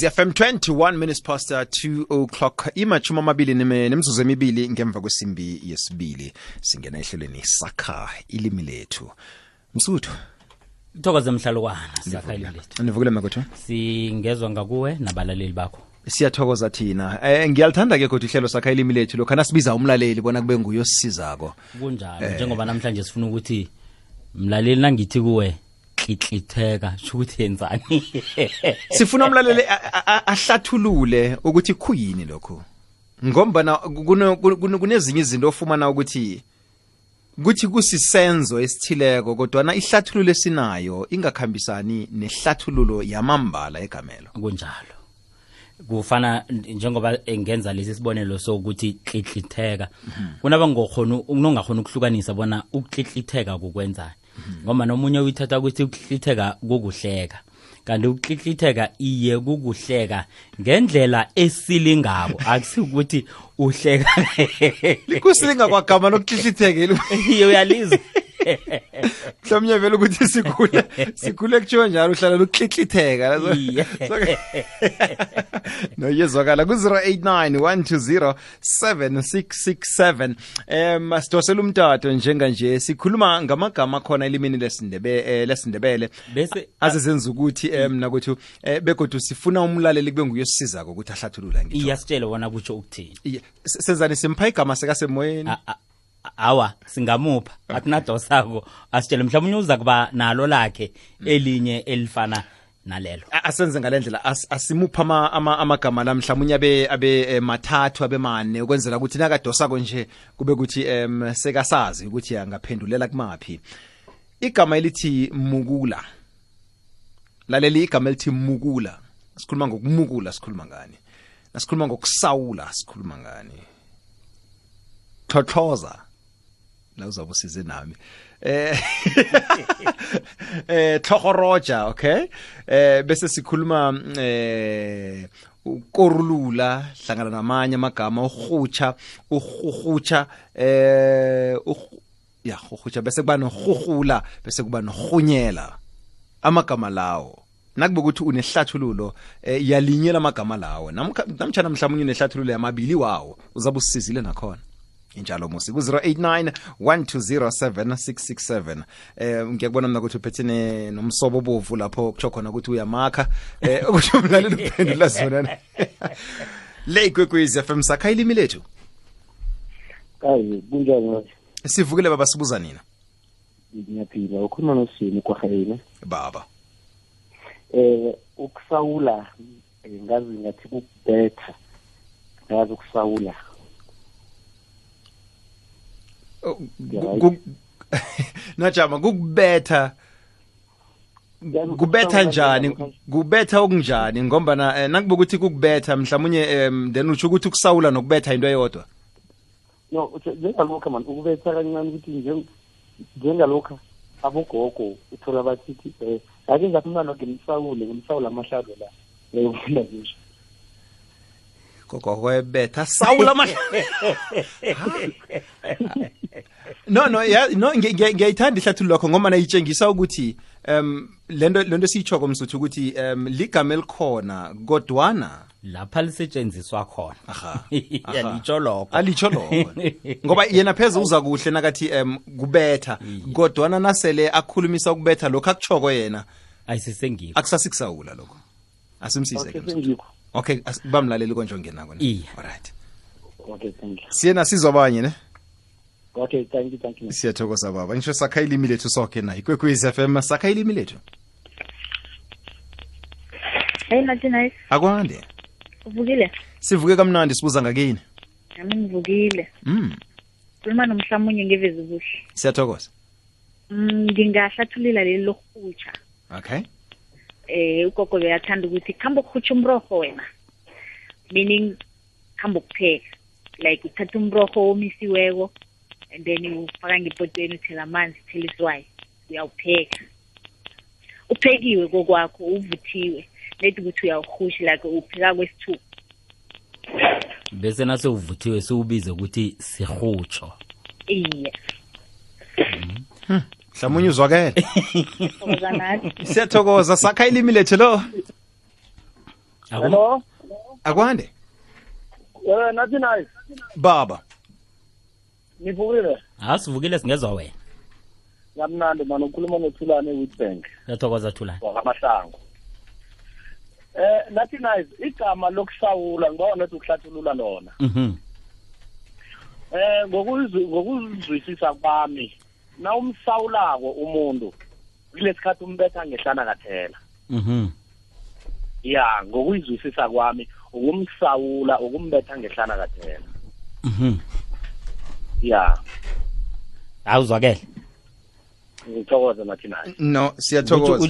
FM 21 minutes past 2 o'clock imachuma amabili nemizuzu emibili ngemva kwesimbi yesibili singena ehlelweni sakha ilimi lethu Msuthu Thokoza mhlalukwana sakha ilimi lethu Nivukile makotho Singezwa ngakuwe nabalaleli bakho Siyathokoza thina ngiyalithanda ke kodwa ihlelo sakha ilimi lethu lokho nasibiza umlaleli bona kube nguye osizako kunjalo njengoba namhlanje sifuna ukuthi mlaleli nangithi kuwe klitlitheka ukuthi yenzani Sifuna umlaleli ahlathulule ukuthi khuyini lokho ngombana kunezinye izinto ofumana ukuthi kusisenzo esithileko kodwa na ihlathululo esinayo ingakhambisani nehlathululo yamambala egamelo kunjalo kufana njengoba engenza lesi sibonelo sokuthi klitlitheka kunaba ngokhona unongakhona ukuhlukanisa bona uklitlitheka kukwenzani ngoba nomunye uyithatha ukuthi uklitlitheka kukuhleka kanti uklitlitheka iye kukuhleka ngendlela esilingabo akusikuthi uhleka likusilinga kwagama loklitlitheka uyalizwa Mhlawumnye vele ukuthi sikhule kuthiwa njalo uhlala loklitlitheka no yezwakala ku 0891207667 masitosela umtato njenganje sikhuluma ngamagama khona elimini lesindebele bese azezenza ukuthi nakuthi begodwa sifuna umlaleli kube nguye osizako ukuthi ahlathulula ngitsho iyasitshela wona kutsho ukuthini senzani simpha igama sekasemoyeni awa singamupha akunadosako asitshele mhlawumnye uza kuba nalo lakhe elinye elifana nalelo asenze ngalendlela asimupha amagama la mhlawumnye abe mathathu abe mane ukwenzela ukuthi nakadosako nje kube ukuthi sekasazi ukuthi angaphendulela kumaphi igama elithi mukula laleli igama elithi mukula sikhuluma ngokumukula sikhuluma ngani nasikhuluma ngokusawula sikhuluma ngani Thothoza la uzabusize nami Thogoroja okay bese sikhuluma ukorulula hlangana namanye amagama uhutsha uhutsha bese kuba nohuhula bese kuba nohunyela amagama lawo nakube ukuthi unehlathululo yalinyela amagama lawo namtshana mhlawumnye unehlathululo yamabili wawo uzabusizile nakhona injalo musi ku 0891207667 ngiyakubona mina ukuthi uphethene nomsobo obovu lapho kutsho khona ukuthi uyamakha ukuthi umlaleli uphendula zona le kwekwezi FM sakha ilimi lethu kayi kunjani sivukile baba sibuza nina ngiyaphila ukhuluma nosini kwahayina baba ukusawula ngazi ngathi kubetha ngazi ukusawula Najama kubetha njani kubetha okunjani ngoba nakuba ukuthi kukubetha mhlawumnye then uthi ukuthi ukusawula nokubetha into eyodwa no njengalokho man ukubetha kancane ukuthi njengalokho abogogo uthola bathi ake ngaphumana ngimsawula amahlalo la ufunda nje gogo webetha sawula no ngiyayithanda ihlathululo lakho ngoba nayitshengisa ukuthi lento siyichoko msuthu ukuthi ligama elikhona kodwana lapha lisetshenziswa khona alitsho lokho ngoba yena pheze uza kuhle nakathi kubetha kodwana nasele akhulumisa ukubetha lokho akuchoko yena ayisisengiko akusasikusawula lokho asimsize okay bamlaleli konje ngena kona alright okay thank you siyena sizwa abanye ne okay thank you siyathokoza baba ngisho sakha ilimi lethu sonke nayi kwekwezi FM sakha ilimi lethu Hey Martinez akwande uvukile sivuke kamnandi sibuza ngakini nami ngivukile khuluma nomhlamunye ngevezi kuhle siyathokoza ngingahlathulula leli lokuhutsha okay ugogo beyathanda ukuthi khamba ukuhutsha umrorho wena meaning khamba ukupheka like uthatha umrorho omisiweko and then ufaka ngepotweni uthela amanzi uthela iswayi uyawupheka uphekiwe kokwakho uvuthiwe lethi ukuthi uyawuhusha like upheka kwesithuba bese nase uvuthiwe siubize ukuthi sihutsho iye mhlawumnye uzwakele Uzanathi siyathokoza sakha ilimi lethu lo Hello. Akwande Nathi nice. baba Nivukile. Asivukile singezwa wena. Ngamnandi manje ukhuluma noThulane Witbank. Yathokoza Thulane. Wakamasango. Nathi nice igama lokusawula ngibona ukuthi ukuhlathulula lona. Ngokuzwisisa kwami na umsawulako umuntu kulesikhathi umbetha ngehlana kathela. Ya ngokuyizwisisa kwami ukumsawula ukumbetha ngehlana kathela. Ya awuzwakele ngithokoza nathi naye. No siyathokoza.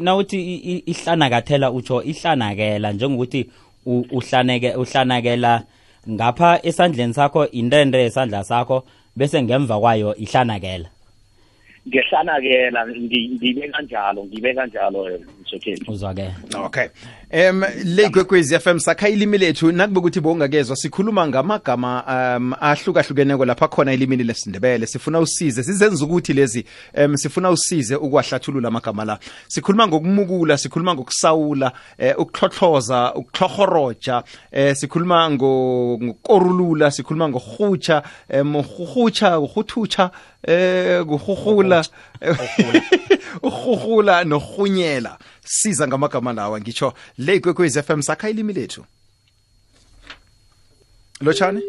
Nawuthi ihlanakathela utsho ihlanakela njengokuthi uhlanakela ngapha esandleni sakho intende esandla sakho bese ngemva kwayo ihlanakela. Ngehlanakela ngibe kanjalo msokeli. Uzwakele. Okay. Le Kwekwezi FM sakha ilimi lethu nakube ukuthi bongakezwa sikhuluma ngamagama ahlukahlukeneko lapha khona ilimini lesindebele sifuna usize sizenza ukuthi lezi sifuna usize ukwahlathulula amagama la sikhuluma ngokumukula sikhuluma ngokusawula ukuhlohloza ukuhlohoroja sikhuluma ngokorulula sikhuluma ngohutsha uhuthutsha kuhuhula uhuhula nohunyela siza ngamagama lawa ngitsho le Kwekwezi FM sakha ilimi lethu lo chani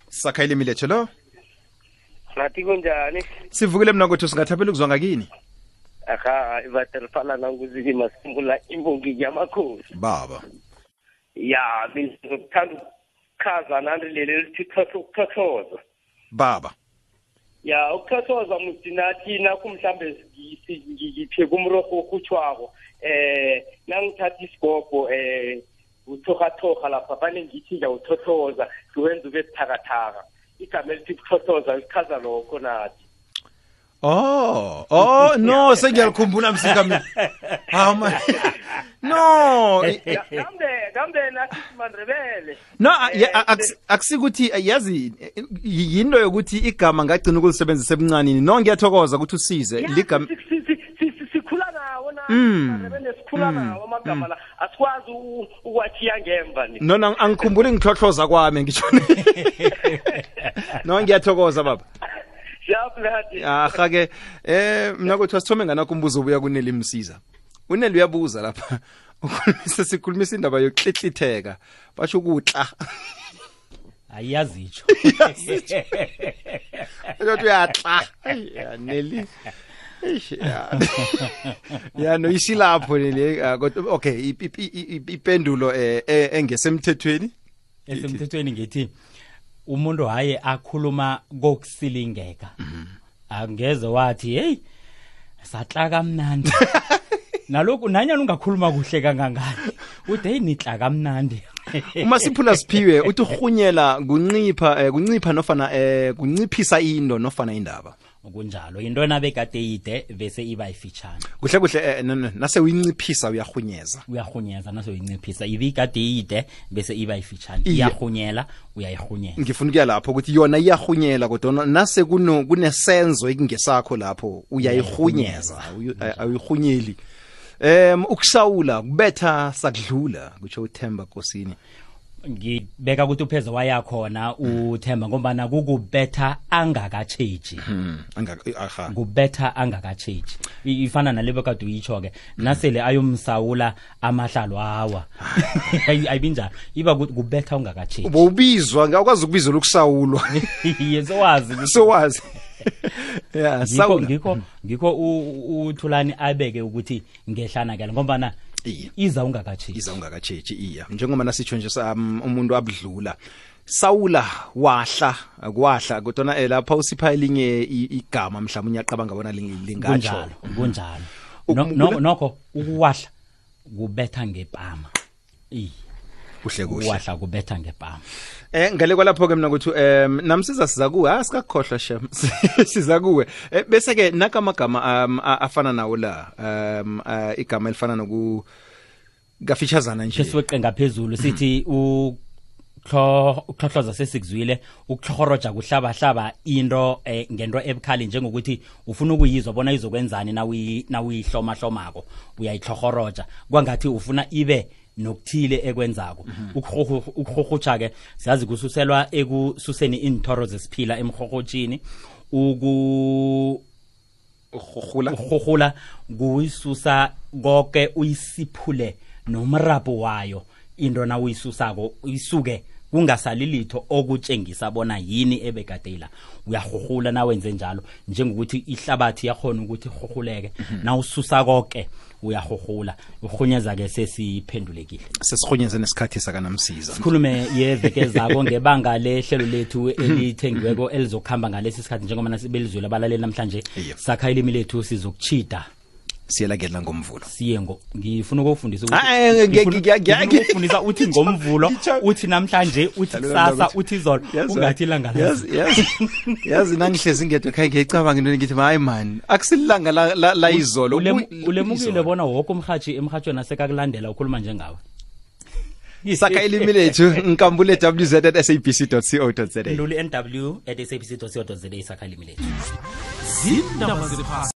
sakha ilimi lethu lo Nathi kunjani? sivukile mina ukuthi singathaphela ukuzwa ngakini Aha ivaterfala nanguziki masimbula imbongi yamakhosi baba ya ngithanda ukukhaza nandilele lithi ukuthothoza baba ya ukuthothoza mthinathi nakho mhlambe ngithe kumroko okhutshwako nangithatha isigobho uthokhathoka lapha fane ngithi ngiyawuthothoza siwenza ube buthakathaka igama elithi ukuthothoza lichaza lokho nathi. No sengiyalikhumbula msika mina no gambe nathi siMandebele no akusikuthi yazi yinto yokuthi igama ngagcina ukulisebenzisa ebuncanini no ngiyathokoza ukuthi usize ligama sikhula nawo na Mandebele sikhula nawo amagama la asikwazi ukwathiya ngemva ni no angikhumbuli ngihlohloza kwami ngisho no ngiyathokoza baba ke mina kuthi sithome nganakho umbuzo ubuya kuneli msiza uneli uyabuza lapha sikhulumisa indaba yokuhlihlitheka basho ukutla ayazitsho uthi uyatla neli ya no isilapho le okay ipendulo engesemthethweni esemthethweni ngithi umuntu haye akhuluma kokusilingeka angeze wathi hey satla kamnandi nalokhu nanyana ungakhuluma kuhle kangangani uthi hey nitla kamnandi uma siphula siphiwe uthi uhunyela kuncipha nofana kunciphisa into nofana indaba kunjalo into nabekade ide bese iba ifitshana kuhle nase uyinciphisa uyahunyeza nase uyinciphisa ibikade ide bese iba ifitshana iyahunyela uyayihunyeza ngifuna ukuya lapho ukuthi yona iyahunyela kodwa nase kunesenzo ekingesakho lapho uyayihunyeza ayihunyeli ukusawula kubetha sakudlula kutsho uThemba Nkosini ngibeka ukuthi upheze wayakhona uThemba ngoba kukubetha angakatsheji kubetha angakatsheji ifana nalebo kade uyitsho ke nasele ayomsawula amahlalo awa ayibinjalo iba kubetha ungakatsheji ubizwa ngakwazi ukubizwa lokusawulwa yesowazi yeah ngikho uThulani abeke ukuthi ngehlanakela ngoba iza ungakatsheji iya njengoba nasitsho nje umuntu abudlula sawula wahla kodwa lapha usipha elinye igama mhlawumnye uyaqabanga bona lingatsho kunjalo nokho ukuwahla kubetha ngepama kuhle wahla kubetha ngepama ngale kwalapho ke mina ukuthi namsiza siza kuwe asikakhohlwa shem siza kuwe bese ke nakamagama afana nawo la igama elifana noku gafitshazana nje sesiweqe ngaphezulu sithi ukuhlohloza sesikuzwile ukuhlohoroja kuhlaba into ngento ebukhali njengokuthi ufuna ukuyizwa bona izokwenzani nawuyihloma hlomako uyayihlohoroja kwangathi ufuna ibe nokuthile ekwenzako ukuhohotsha ke siyazi kususelwa ekususeni inthoro zesiphila emhohotshini ukuhohula kuyisusa konke uyisiphule nomrabo wayo into na uyisusako isuke kungasali litho okutshengisa bona yini ebekadela uyahohula na wenze njalo njengokuthi ihlabathi yakhona ukuthi hohuleke na ususa konke uyahohula uhunyeza ke sesiphendulekile sesihunyeze nesikhathi sakanamsiza sikhulume yeveke zako ngebanga lehlelo lethu elithengiweko elizokhamba ngalesi sikhathi njengoba sibelizwela abalaleli namhlanje sakha ilimi lethu sizokuchida siyelakela ngomvulo siye ngifuna ukufundisa ukufundisa uthi ngomvulo uthi namhlanje uthi kusasa uthi izolo ungathi ilanga yazi nangihlezi ngedwa khaye ngiyicabanga into ngithi hayi man akusilanga la izolo ulemukile bona wonke umhathi emhathweni asekakulandela ukhuluma njengawe sakha ilimi lethu nkambule www.sabc.co.za nduli nw@sabc.co.za sakha ilimi lethu zindaba